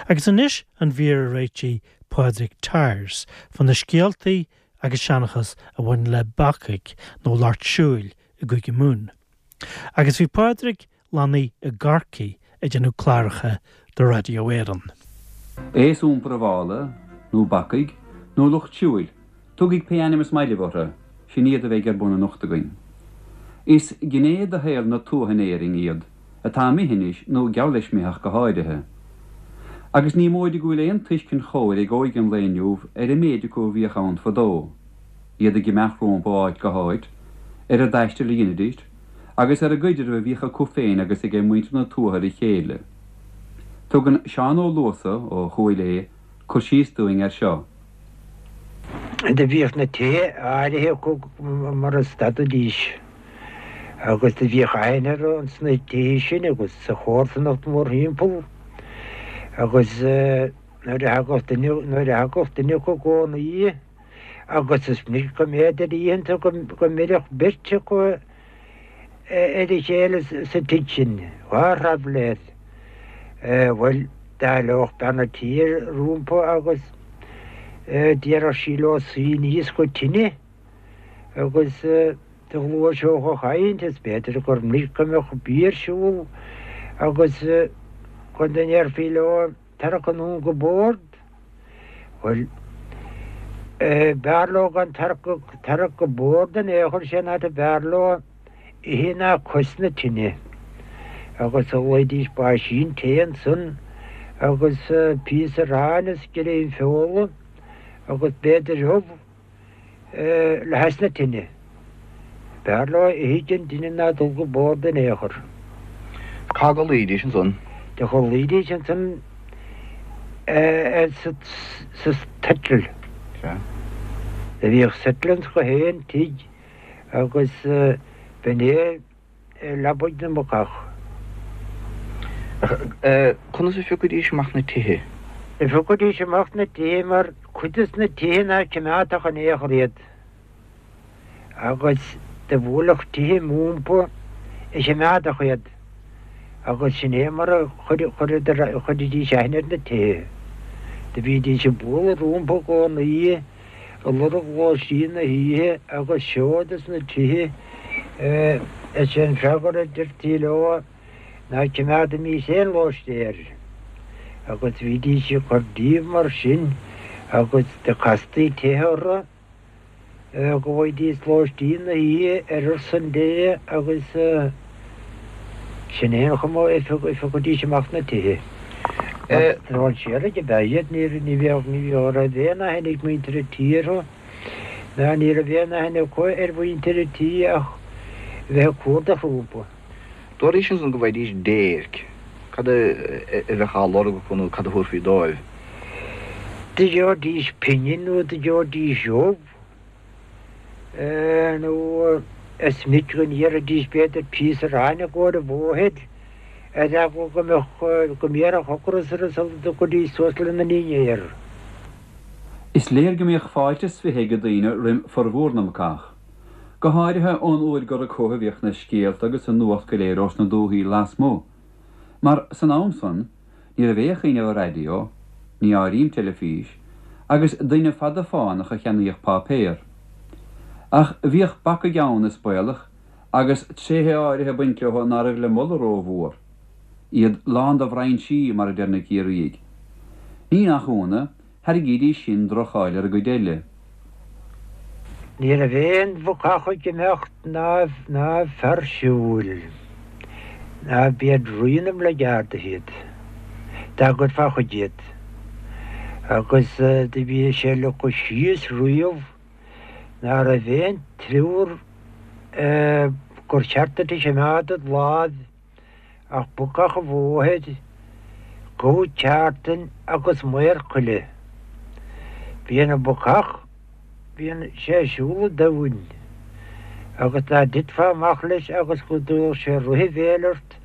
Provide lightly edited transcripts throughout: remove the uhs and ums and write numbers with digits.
Agus anois an mhír a réitigh Pádraig Tyers fá na scéaltaí agus seanchas a bhain le bacaigh nó lucht siúil i gCúige Mumhan. Agus bhí Pádraig lonnaithe i gCorcaigh ag déanamh cláracha do Radio Éireann. Aos iompair an mhála, nó bacaigh, nó lucht siúil, tugaig pé ainm is maith libh orthu, sin iad a bheidh ar bun anocht againn. Is gné de shaol na tuaithe in Éirinn iad, atá imithe anois, nó geall leis imithe ach go háirithe. Agus ní móide go bhfuil aon tuiscint chóir ag óige an lae inniu ar an méid acu a bhíodh ann fadó, iad ag imeacht rompu ó áit go háit, ar an dtaisteal a dheinidís, agus ar an gcuidreamh a bhíodh acu féin agus aige muintir na tuaithe ar a chéile. Tugann Seán Ó Luasa, ó Chúil Aodha, cur síos dúinn air seo. Do bhíodh na tithe áirithe acu mar a stadaidís agus do bhíodh aithne orthu ins na tithe sin agus sa chomharsanacht mórthimpeall agus nuair a thagadh duine, nuair a thagadh duine acu i gcónaí agus is minic go mb'fhéidir oícheanta go mbeireadh beirt acu ar a chéile sa tigh sin, dhá thraibhléir. Bhuel, d'éileodh bean a' tí rompu agus déarfadh sí leo suí aníos go tine agus do ghluaiseodh an chaint is b'fhéidir gur minic go mbeadh bia ar siúl agus go ndéarfaí leo tarrac anonn go bord. Bhuel, b'fhearr leo gan tarrac go bord in aon chor, sé an áit a b'fhearr leo ithe ná cois na tine. Agus ghlaoidís báisín tae ansan agus píosa aráin is greim feola agus b'fhéidir ubh. le hais na tine. B'fhearr leo ithe den tine ná dul go bord in aon chor. Cá gcodlaídís ansan? Do chodlaídís ansan sa tsettle. Sea. Do bhíodh settle ins gach aon tigh agus b'in é leabaidh na mbacach. Conas a phiocaidís amach na tithe? Do phiocaidís amach na tithe mar cuid des na tithe ná cimeádfadh in aon chor iad agus do bhuailfeadh tithe rompu a chimeádfadh iad agus sin é mar a chuiridís aithne ar na tithe. Do bhídís ag bualadh rompu i gcónaí. ag lorg lóistín na hoíche agus seod as na tithe is é an freagra a deirtí leo ná cimeádaimís aon lóistéir agus bhídís ag cur díobh mar sin agus do castaí tithe orthu go bhfaighidís lóistín na hoíche ar son Dé agus Sin é an chuma a phiocfaidís amach na tithe. Strainséirí ab ea iad, ní bheadh, ní raibh aon aithne ag muintir an tí orthu, ná ní raibh aon aithne acu ar mhuintir an tí ach a bheith ag cuardach rompu. Dúraís ansan go bhfaighidís déirc. Cad a bheadh á lorg acu nó cad a thabharfaí dóibh? Do gheobhaidís pingin nó do gheobhaidís ubh. nó is minic go n-iarrfaidís b'fhéidir píosa aráin i gcomhair an bhóthair, ar eagla go mbeadh, go mbéarfadh ocras orthu sula dtiocfaidís suas lena ndinnéar. Is léir go mbíodh fáilte is fiche ag daoine roim formhór na mbacach. Go háirithe ón uair gur acu a bhíodh na scéalta agus an nuacht go léir ós na dúthaí lasmuigh. Mar san am san, Ní raibh aon chuimhneamh ar raidió, ní áirím teilifís, agus duine fada fánach a cheannaíodh páipéar. Ach bhíodh bacaigh ann, is baolach, agus tréithe áirithe ag baint leo ná raibh le moladh rómhór. Iad lán de bhrainsí, mar a deir na Ciarraígh. Ní nach ionadh, Thairgídís sin droch-cháil ar an gcuid eile. Ní raibh aon bhacach ag imeacht ná ná fear siúil, ná b'iad rí na mblackguardaithe iad, dá gcuirfeá chuige iad. Agus do bhí sé leagtha síos riamh ná raibh aon triúr gur cheart duit a chimeád id láimh ach bacach an bhóthair, gabha ceártan agus maor coille. Bíonn an bacach, bíonn sé ag siúl an domhain, agus dá dtitfeá amach leis agus go dtabharfadh sé rith a bhéil ort,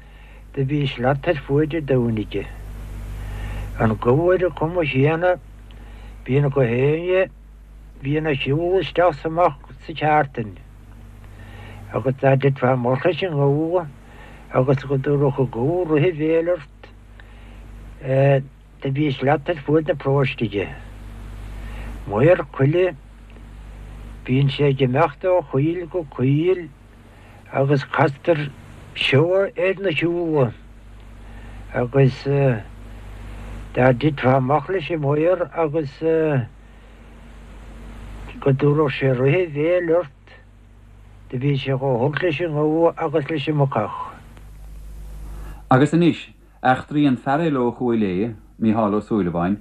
do bhí slat ar fuaid an domhain aige. An gabha ar an chuma chéanna, bíonn gach éinne, bíonn ag siúl isteach 's amach sa cheártain, agus dá dtitfeá amach leis an ngabha, agus go dtabharfadh an gabha rith a bhéil ort. Do bhí slat ar fuaid na paróiste aige. Maor coille, bíonn sé ag imeacht ó choill go coill agus castar seabha ar na siúla agus dá dtitfeá amach leis an maor agus go dtabharfadh sé rith a bhéil ort, do bhí sé chomh holc leis an ngabha agus leis an mbacach. Agus anois, Eachtraí an fear eile ó Chúil Aodha, Mícheál Ó Súilleabháin,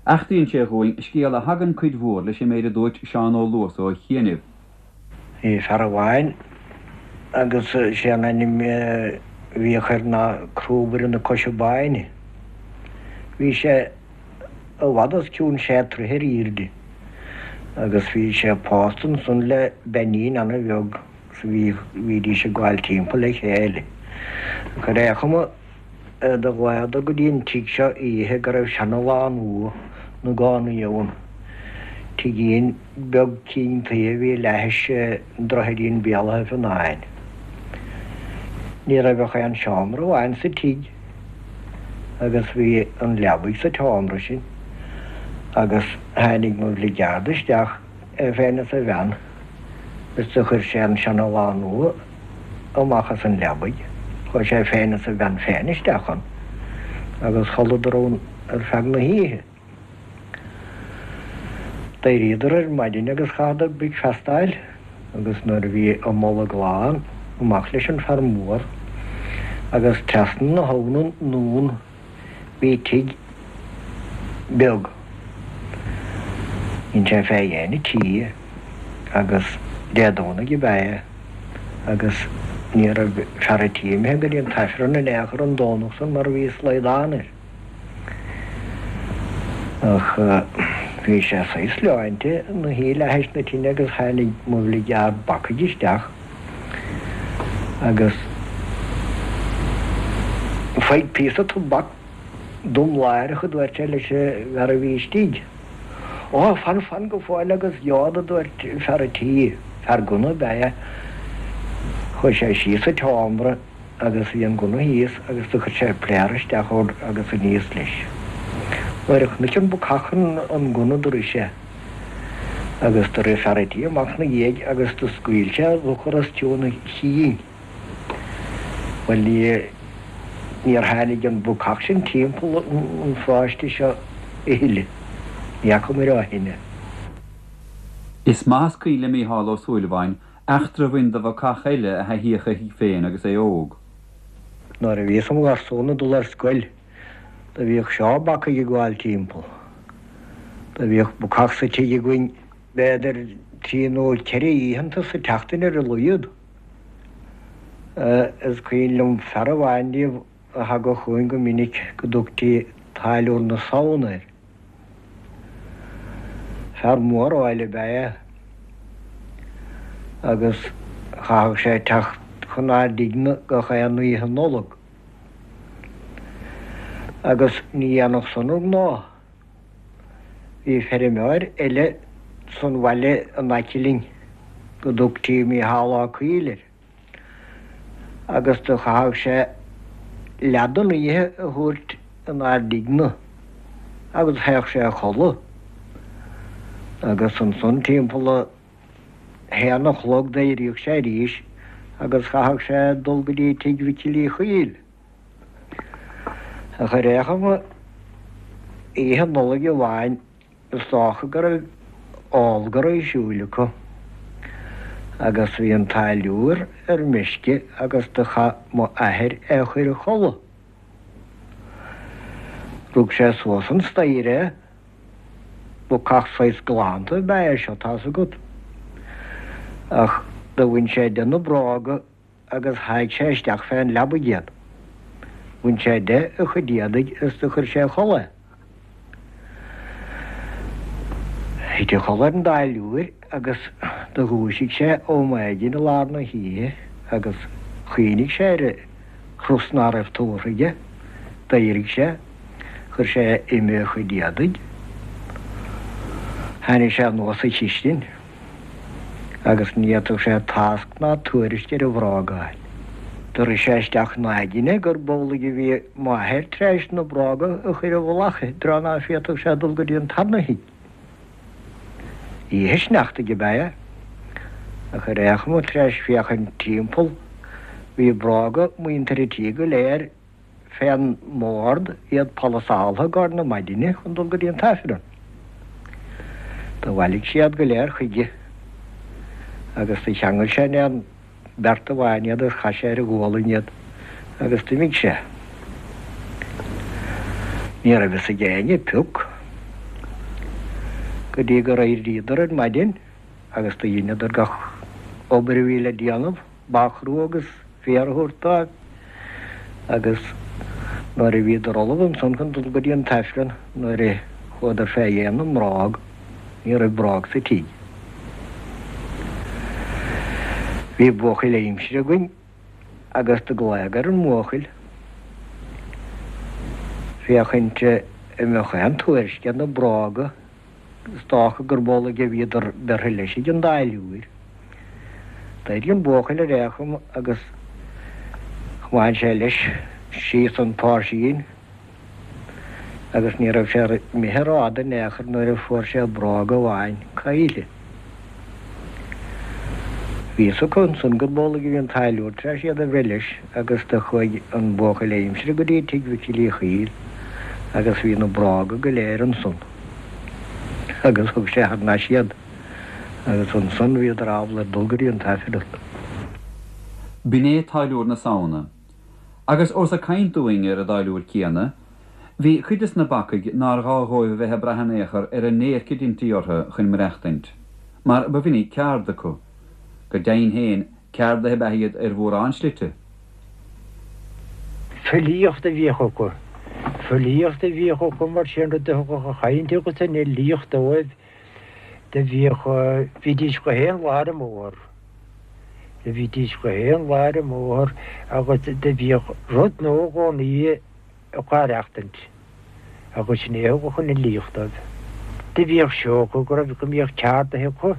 eachtraíonn sé dhúinn scéal a thagann cuid mhór leis an méid a dúirt Seán Ó Luasa ó chianaibh. Bhí fear amháin agus sé an ainm a bhíodh air ná Crúbaire na Coise Báine. Bhí sé i bhfad os cionn sé troithe ar aoirde agus bhí sé pósta ansan le beainín ana bheag. 's bhí, bhídís ag gabháil timpeall le chéile. Ach ar aon chuma, do ghlaodar go dtí an tigh seo oíche go raibh seana-lánúin 'na gcónaí ann. Tigín beag cinn tuí a bhí leathais droichidín Béal Átha Fionáin. Ní raibh ach aon seomra amháin sa tigh agus bhí an leabaidh sa tseomra sin agus tháinig mo bhligeárd isteach é féin is a bhean, is do chuir sé an seana-lánúin amach as an leabaidh. Chuaidh sé féin is a bhean féin isteach ann agus chodladar ann ar feadh na hoíche. D'éiríodar ar maidin agus chaitheadar bricfeasta a fháil agus nuair a bhí a mbolg lán, amach leis an fear mór agus trasna na habhna anonn Bhí tigh beag. Dhein sé fé dhéin an tí agus Dé Domhnaigh ab ea é agus ní raibh fear an tí imithe go dtí an t-Aifreann in aon chor an Domhnach san mar bhí slaghdán air. Ach bhí sé saghas leáinte ina shuí leathais na tine agus tháinig mo bhligeárd bacaigh isteach. Agus faigh píosa tobac dom láithreach, a dúirt sé leis an bhfear a bhí istigh. Ó, fan, fan go fóill agus gheobhad, a dúirt fear an tí. Fear gunna ab ea é. Chuaigh sé síos sa tseomra agus bhí an gunna thíos agus do chuir sé pléar isteach ann agus aníos leis. Nuair a chonaic an bacach an gunna do rith sé. Agus do rith fear a' tí amach 'na dhiaidh agus do scaoil sé urchar os cionn a chinn. Bhuel, ní, níor tháinig an bacach sin timpeall an pharóiste seo a thuilleadh. Ní fhacamair ó shin é. Is maith is cuimhin le Mícheál Ó Súilleabháin eachtra a bhain do bhacach eile a thaithíodh a thigh féin agus é óg. Nuair a bhíos im gharsún ag dul ar scoil, Do bhíodh seó bacaigh ag gabháil timpeall. Do bhíodh bacach sa tigh againn b'fhéidir trí nó ceithre oícheanta sa tseachtain ar a laghad. Is cuimhin liom fear amháin díobh a thagadh chugainn go minic go dtugtaí Táilliúir na Samhna air. Fear mór áille ab ea é agus chaithfeadh sé teacht chun ár dtigh-ne gach aon oíche Nollag. Agus ní dhéanfadh san ar ghnáth. Bhí feirmeoir eile san bhaile in aice linn go dtugtaí Mícheál Ó Cuill air agus do chaitheadh sé leath den oíche a thabhairt inár dtigh-ne agus théadh sé a chodladh agus ansan timpeall a haon a chlog d'éiríodh sé arís agus chaitheadh sé dul go dtí tigh Mhicil Uí Chuill. Ach ar aon chuma, oíche Nollag amháin is dócha go raibh ól-gar ar siúl acu agus bhí an táilliúir ar meisce agus do chaith m'athair é a chur a chodladh. Rug sé suas an staighre é. Bacach saghas galánta ab ea é seo, tá's agat. Ach do bhain sé de na bróga agus sháigh sé isteach fén leabaidh iad. Bhain sé de a chuid éadaigh is do chuir sé a chodladh é. Thit a chodladh ar an dtáilliúir agus do dhúisigh sé ó maidin i lár na hoíche agus chuimhnigh sé ar an chros ná raibh tabhartha aige. D'éirigh sé. Chuir sé uime a chuid éadaigh. Tháinig sé anuas sa chistin agus ní fhéadfadh sé tásc ná tuairisc ar a bhróga a fháil. Do rith sé isteach 'na aigne gurb amhlaidh a bhí m'athair tar éis na bróga a chur i bhfolach i dtreo ná féadfadh sé dul go dtí an tarna thigh. Oíche sneachtaidh ab ea é. Ach ar aon chuma tar éis féachaint timpeall bhí bróga muintir an tí go léir fén mbord, iad polasáltha i gcomhair na maidine chun dul go dtí an t-Aifreann. Do bhailigh sé iad go léir chuige agus do cheangail sé in aon beart amháin iad agus chaith sé ar a ghualainn iad agus d'imigh sé. Ní raibh fhios ag éinne pioc go dtí gur éiríodar ar maidin agus do dheineadar gach obair a bhí le déanamh. Ba chrua agus féar a thabhairt dóibh agus nuair a bhíodar ullamh ansan chun dul go dtí an t-Aifreann nuair a chuadar fé dhéin na mbróg ní raibh bróg sa tigh. Bhí buachaill aimsire againn agus do glaodh ar an mbuachaill féachaint an mbeadh aon tuairisc ar na bróga Is dócha gurb amhlaidh a bhíodar bertha leis ag an dtáilliúir. D'éirigh an buachaill ar aon chuma agus chomáin sé leis síos an páirsín agus ní raibh sé imithe rófhada in aon chor nuair a fuair sé bróg amháin caillte. Bhí fhios acu ansan gurb amhlaidh a bhí an táilliúir tar éis iad a bhreith leis agus do chuaigh an buachaill aimsire go dtí tigh Mhicil Uí Chuill agus bhí na bróga go léir ansan agus thug sé thar n-ais iad agus ansan bhíodar ábalta dul go dtí an t-Aifreann. B'in é Táilliúir na Samhna. Agus ós ag caint dúinn ar an dtáilliúir céanna, bhí cuid des na bacaigh nár ghá dhóibh a bheith ag brath in aon chor ar an ndéirc a deintí orthu chun maireachtaint, mar ba mhinic ceárd acu. Go deimhin féin, ceardaithe ab ea iad ar mhórán slite. Filíocht a bhíodh acu. Filíocht a bhíodh acu mar sin rud a thugadh an chaint agus an fhilíocht dóibh. Do bhíodh, bhídís gach aon lá ar an mbóthar. Do bhídís gach aon lá ar an mbóthar agus do bhíodh rud nua i gcónaí acu á aireachtaint agus sin é a thugadh an fhilíocht dóibh. Do bhíodh seó acu go raibh, go mbíodh ceardaithe acu,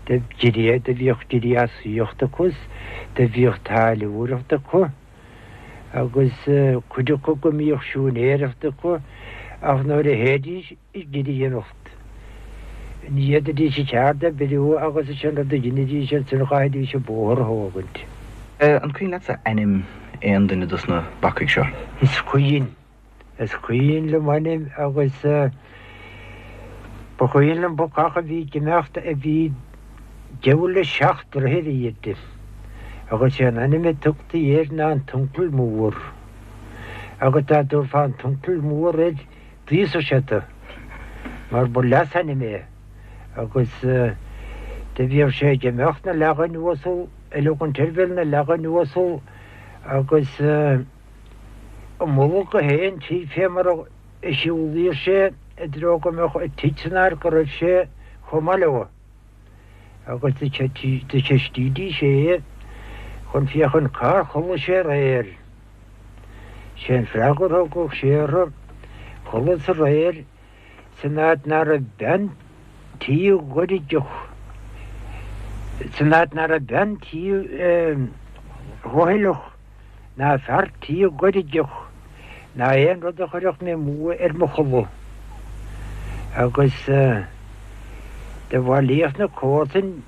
do do bhíodh gréasaíocht acu is do bhíodh táilliúireacht acu agus cuid acu go mbíodh siúinéireacht acu ach nuair a théidís ag gréanacht. Ní fhéadfaidís a cheard a oibriú agus is é an rud a dheinidís ansin chaithfidís an bóthar a thógaint. An cuimhin leatsa ainm aon duine dos na bacaigh seo? Is cuimhin. Is cuimhin liom ainm agus ba chuimhin liom bacach a bhí ag imeacht a bhí deabhal le seacht droichead ar airde agus sé an ainm a tugtaí air ná an tUncail Mór. Agus dá dtabharfá an tUncail Mór air D'íosfadh sé tú, mar ba leasainm é, agus do bhíodh sé ag imeacht 'na leagan uasal, ag leogaint ar bhéal 'na leagan uasal, agus i mullach gach aon tigh fé mar a shiúlaíodh sé i dtreo go mbeadh an tigh san áit go raibh sé chomh maith leo. Agus do cheistídís é chun féachaint cár chodlaigh sé aréir. Sé an freagra a thugadh sé orthu, Chodlas aréir san áit ná raibh bean tí ghoirgeach, san áit ná raibh bean tí dhoicheallach ná fear tí goirgeach ná aon rud a chuirfeadh mé amú ar mo chodladh. Agus do bhailíodh na comharsain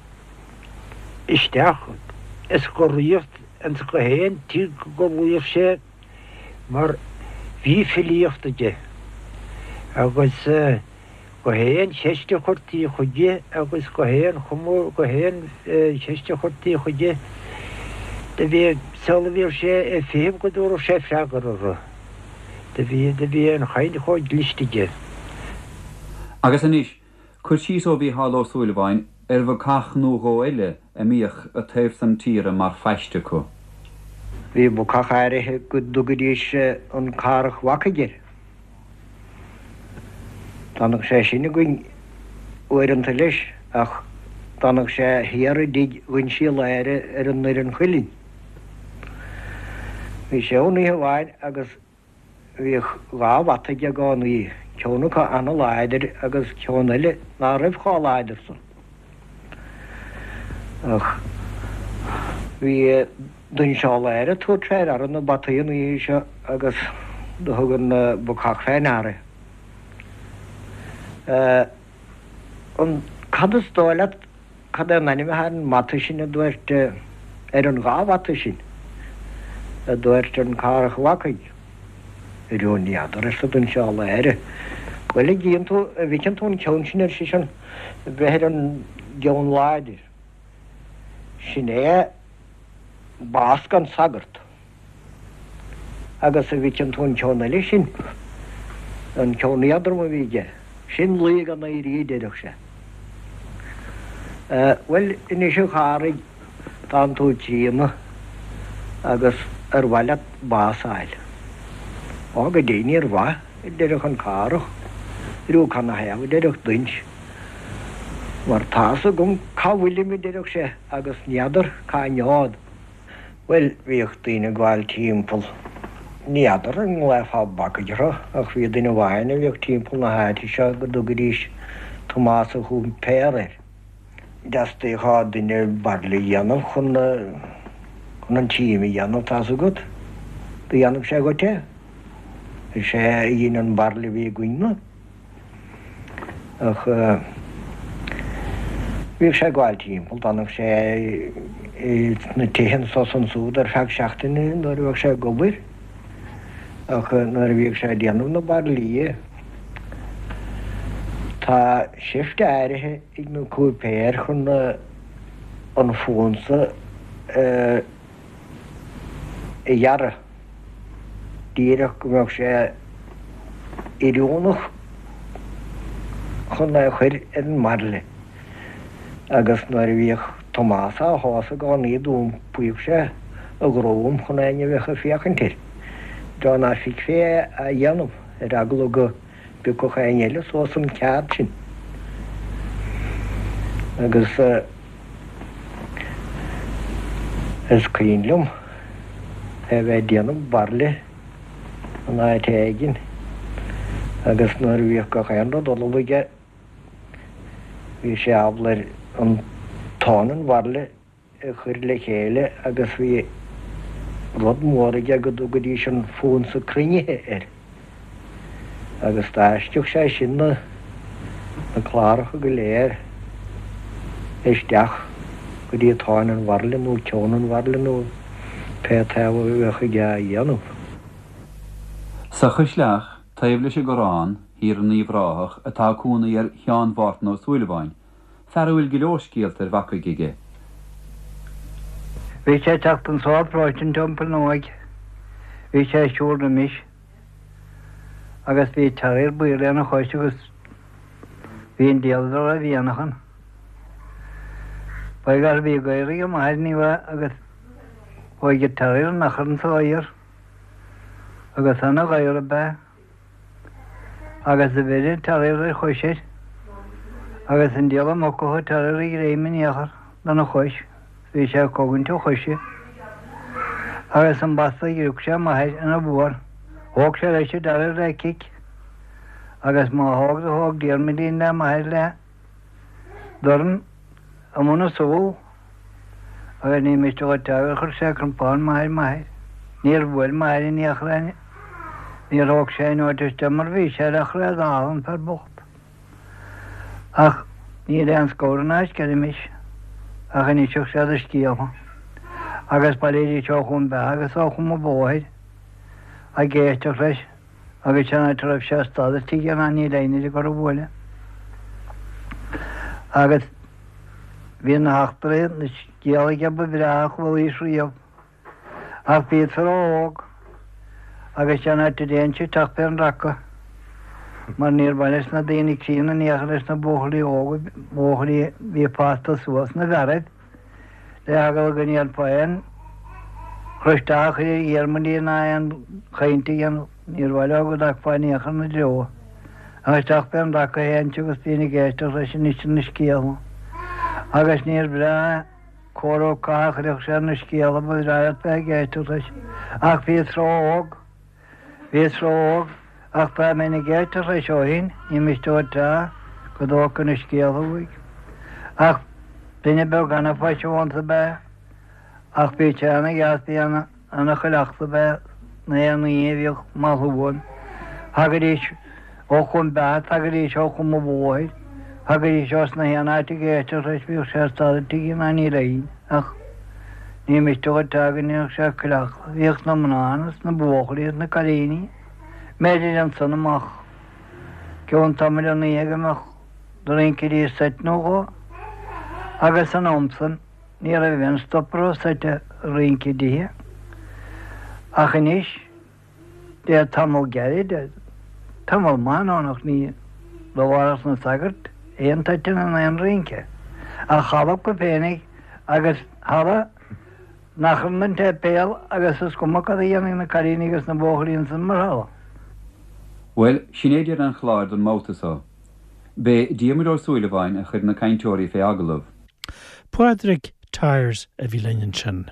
isteach i scoraíocht ins gach aon tigh go gcodlaíodh sé mar bhí filíocht aige agus gach aon cheist a chuirtí chuige agus gach aon chuma gach aon cheist a chuirtí chuige do bhí sula bhíodh sé ag feitheamh go dtabharfadh sé freagra orthu. Do bhí do bhí an chaint chomh cliste aige. Agus anois, Cur síos ó Mhícheál Ó Súilleabháin ar bhacach nó dhó eile a mbíodh an taobh san tíre mar phaiste acu. Bhí bacach áirithe go dtugaidís an Carrach Bhacaigh air. D'fhanadh sé sin againn uaireanta leis ach d'fhanadh sé thiar i dtigh Uinsí Láir ar an nDoireann Chuilinn. Bhí sé ann oíche amháin agus Bhíodh dhá bhata aige i gcónaí, ceann acu ana-láidir agus ceann eile ná raibh chomh láidir san. Ach bhí. Doinseál air ag tabhairt fé ndeara na bataí an oíche seo agus do thug an bacach fé ndeara. An, cad is dóigh leat, cad é an ainm atá ar an mbata sin a dúirt, ar an dhá bhata sin, a dúirt an Cárthach Ó Bhacaigh. Arú ní fheadar, arsa Doinseál Aire. Bhuel, a gcíonn tú, a bhfeiceann tú an ceann sin, ar seisean, ag breith ar an gceann láidir. Sin é bás gan sagart. Agus a bhfeiceann tú an ceann eile sin, an ceann éadrom a bhí aige, sin luí gan éirí a deireadh sé. Bhuel, anois a Chárthaigh, tánn tú críonna agus ar mhaith leat bás a fháil? Ó, go deimhin ar mhaith, a deireadh an Cárthach. Arú canathaobh, a deireadh Duinnse. Mar tá's agam cá bhfuilim, a deireadh sé, agus n'fheadar cá ngeobhad. Bhuel, bhíodh daoine ag gabháil timpeall. Ní fheadar an nglaofá bacaigh orthu, ach bhí duine amháin a bhíodh timpeall na háite seo go dtugaidís Tomás an Chúipéara air. Theastaíodh ó duine bairille a dhéanamh chun chun an tím a dhéanamh, tá's agat. Do dhéanfadh sé dhuit é. Is é a dhein an bairille a bhí againn-ne. Ach bhíodh sé ag gabháil timpeall, d'fhanadh sé sna tithe anso is ansúd ar feadh seachtaine nuair a bheadh sé ag obair. Ach nuair a bhíodh sé ag déanamh na bairillí, tá seift áirithe ag na cúipéir chun an fonsa a a ghearradh díreach go mbeadh sé oiriúnach chun é a chur ar an mbairille agus nuair a bhíodh Tomás á shá i gcónaí d'iompaíodh sé a dhroim chun éinne a bheadh ag féachaint air, i dtreo ná feicfí é á dhéanamh, ar eagla go bpiocfadh éinne eile suas an ceard sin. Agus. Is cuimhin liom é a bheith ag déanamh bairille in áit éigin agus nuair a bhíodh gach aon rud ullamh aige bhí sé ábalta ar an tóin an bhairille a chur le chéile agus bhí rud mór aige go dtugaidís an fonsa cruinnithe air. Agus d'fháisceadh sé sin na cláracha go léir isteach go dtí tóin an bhairille nó ceann an bhairille nó pé taobh a bheadh aige á dhéanamh. Sa Chaisleach, taobh leis an gCorrán, thiar in Uíbh Ráthach, atá cónaí ar Sheán Mhártan Ó Súilleabháin, fear a bhfuil go leor scéalta ar bhacaigh aige. Bhí sé ag teacht anso ó pharóiste an Teampaill Nuaidh. Bhí sé ag siúl roimis. Agus bhí terrier buí lena chois agus bhí an diabhal dá raibh mhianach ann. Ba gar bhí gadhar ag m'athair ní bheadh agus chuaigh an terrier in achar anso thiar agus ana ghadhar ab ea. Agus do bheir an terrier ar chois air agus an diabhal muc a thug an terrier a ghreim in aon chor lena chois. Bhí sé ag cogaint a choise agus an basta a ghrioc sé m'athair ina bharr. Thóg sé leis an terrier le cic agus má thóg do thóg Diarmuidín le m'athair le dorn i mbun a súl agus ní miste dhuit gur chuir sé crompán maith ar m'athair. Níor bhuail m'athair in aon chor é. Níor thóg sé aon notice de mar bhí sé le chré dall an fear bocht. Ach níl aon scabhar ná sceirmis ach inseodh sé do scéalta. Agus bhailídís ó Chom Beatha agus ó Chom an Bhóthair ag éisteacht leis agus sin áit a raibh sé ag stad istigh ná níl éinne ag cur a bhuaile. Agus bhí na heachtraí, na scéalta aige ba bhreá a chualaís riamh. Ach bhíos ró-óg agus cén áit a dtéinnse isteach fén raca mar níor mhaith leis na daoine críonna in aon chor leis na buachaillí óga, buachaillí a bhí fásta suas na bhfearaibh le heagla go ndéanfá aon chur isteach a chur ar Dhiarmuidín ná aon chaint a dhéanamh. Níor mhaith leo go dtagfá in aon chor ina dtreo. Ach isteach fén raca a théinnse agus bhínn ag éisteacht leis ag insint na scéalta. Agus níor bhreá. Cóir ó catha a chuirfeadh sé ar na scéalta ba bhreá leat bheith ag éisteacht leis. Ach bhíos ró-óg. Bhíos ró-óg. Ach dá mbeinn ag éisteacht leis ó shin, ní miste dhuit a go dtógfainn na scéalta uaidh. Ach duine beag ana-phaiseanta ab ea é. Ach bhí sé ana-dheas, bhí ana-chuileachta ab ea na haon oíche a bhíodh maslú ann. Thagaidís ó Chom Beatha, thagaidís ó Chom an Bhóthair, thagaidís ós na haon áit ag éisteacht leis, bhíodh sé ag stad i dtigh an Aindí Léinn ach ní miste dhuit é go ndéanfadh sé cuileachta. Bhíodh na mná ann is na buachaillí is na cailíní, mb'fhéidir ansan amach gcionn tamaill an oíche go mbeadh do rincidís seit nó dhó agus san am san, Ní raibh aon stop a raibh seit ag rince i dtithe. Ach anois, le tamall gairid, tamall maith anonn ach ní labharfadh na sagairt aon toiteann in aon rince. Ach halla acu féinig agus halla nach raibh an tséipéal agus is cuma cad a dhéanfadh na cailíní agus na buachaillí ansan mar halla. Bhuel, sin é deireadh an chláir don mbabhta so. B'é Diarmuid Ó Súilleabháin a chuir na cainteoirí fé agallamh. Pádraig Tyers a bhí linn ansin.